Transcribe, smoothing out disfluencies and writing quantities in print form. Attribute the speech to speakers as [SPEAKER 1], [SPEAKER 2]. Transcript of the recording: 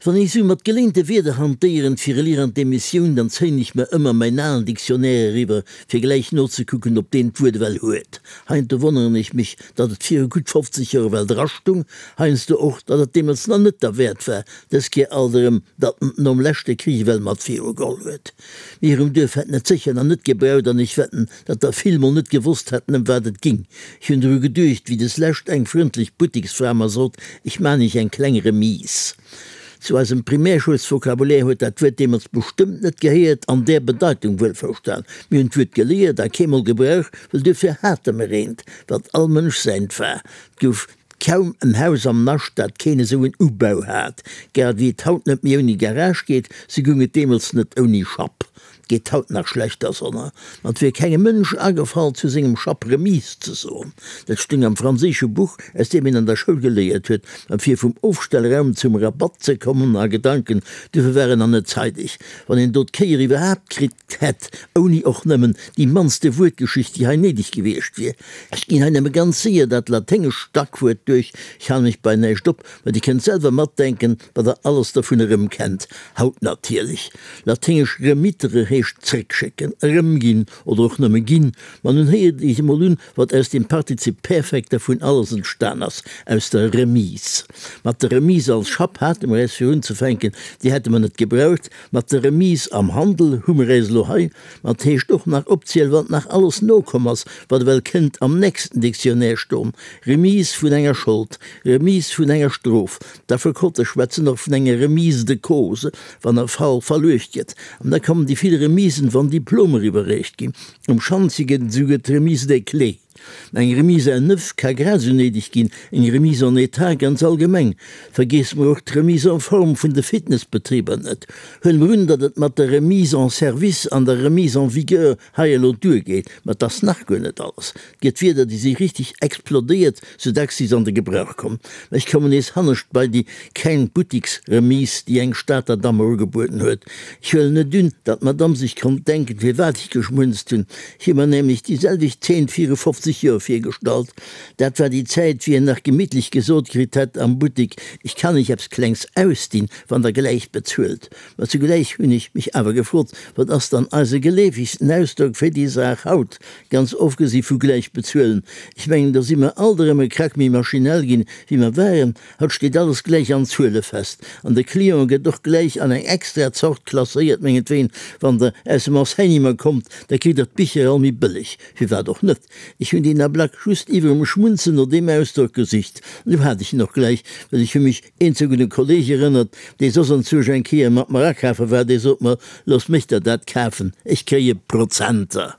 [SPEAKER 1] Wann ech sou mat geléinte Wierder hantéieren fir elir an d'Emissioun, dann zéien ech mer ëmmer mäin alen Dictionnaire eriwwer, fir gläich nozekucken, ob deen d'Wuert ewell huet. Heiansdo wonneren ech mech, datt et viru gutt 50 Joer ewell drastung, heiansdo och, datt et deemools nach net derwäert war, dës Kéier alt erëm, datt en et nom leschte Krich ewell mat virugeholl huet. Mir um Duerf hätten et sécher nach net gebraucht an ech wetten, datt der vill mol net gewosst hätten, ëm wat et ging. Ech hunn dru geduecht, wéi des lescht eng frëndlech Buttiksfra mer sot, ech man iech eng kleng Remise. Zu eisem Primärschoulsvokabulär huet dat Wuert deemools bestëmmt net gehéiert, an där Bedeitung wuelverstan. Mir hunn d'Wuert geléiert a keemol gebraucht, well duerfir hate mer eent, wat all Mënsch säint war. 't gouf kaum en Haus am Nascht, dat keen esou en Ubau hat. Grad ewéi et haut net méi ouni Garage geet, sou goung et deemools net ouni Schapp. Geet haut nach schlechter, sonner ma et wier kengem Mënsch agefall, zu sengem Schapp Remise ze soen. Dat stung am franséische Buch, aus deem een an der Schoul geléiert huet. Ma fir vum Ofstellraum zum Rabatt ze kommen a Gedanken, duerfir war en nach net zeideg. Wann een do d'Kéier iwwerhaapt kritt hätt, ouni och nëmmen déi mannste Wuertgeschicht, déi hei néideg gewiescht wier. Ech ginn hei nëmme ganz séier dat laténgescht Stackwuert duerch, ech halen mech bei näischt op, Mä Dir kënnt selwer matdenken, wat Der alles dovun erëmkennt. Haut natierlech. Laténgesch remittere heescht zréckschécken, erëmginn oder och nëmme ginn. Ma nun héiert Iech emol un, wat aus dem Partizip Perfekt dervun alles entstan ass, aus der Remise. Mat der Remise als Schapp hate mer äis fir unzefänken, déi hätte mer net gebraucht. Mat der Remise am Handel hu mer äis elo hei. Ma et heescht och nach opzielen, wat nach alles nokomm ass, wat ewell kënnt am nächsten Dictionnaire stoen, Remise vun enger Schold, Remise vun enger Strof. D'Affekote schwätzen och vun enger Remise de cause, wann e Fall verluecht gëtt. An da kommen déi vill Remisen, wann Diplomer iwwerreecht ginn. Um Schantje gëtt et esouguer d'Remise des clés. Eng Remise à neuf ka grad esou néideg ginn, eng Remise en état ganz allgemeng. Vergeesse mer och d'Remise en forme vun de Fitnessbetriber net. Huele mer un, datt et mat der Remise en service an der Remise en vigueur hei elo duergeet, ma et ass nach guer net alles. Et gëtt Wierder, déi si richtig explodéiert, sou dacks si se an de Gebrauch kommen. Mä ech kommen nees hannescht bei déi kleng Buttiksremise, déi eng Stater Damm mer ugebueden huet. Ech huelen net un, datt d'Madamm sech konnt denken, firwat ech geschmunzt hunn. Ech hu mer nämlech déi selwecht Zeen viru 50 Joer virgestallt. Dat war déi Zäit, wéi een nach gemittlech gesot kritt hätt am Buttik, Ech kann Iech eppes Klengs ausdinn, wann Der gläich bezuelt. Mä zugläich hunn ech mech awer gefrot, Wat ass dann eise geleefegsten Ausdrock fir déi Saach haut, ganz ofgesi vu gläich bezuelen? Ech mengen, do si mer alt erëm e Krack méi maschinell ginn, wéi mer waren. Haut steet alles gläich an Zuele fest an de Client gëtt och gläich an eng extra Zort klasséiert. Mengetween, wann Der aus dem Enseignement kommt, da kritt Der d'Bicher all méi bëlleg. Firwat och net? Ech hunn deen Ablack just iwwerem Schmunzen no deem Ausdrock gesicht. An du hat ech en och gläich, well ech hu mech eenzeg un e Kolleg erënnert, dee soss anzwousch eng Kéier mat mer akafe war, dee sot mer, Looss mech der dat kafen, ech kréie Prozenter.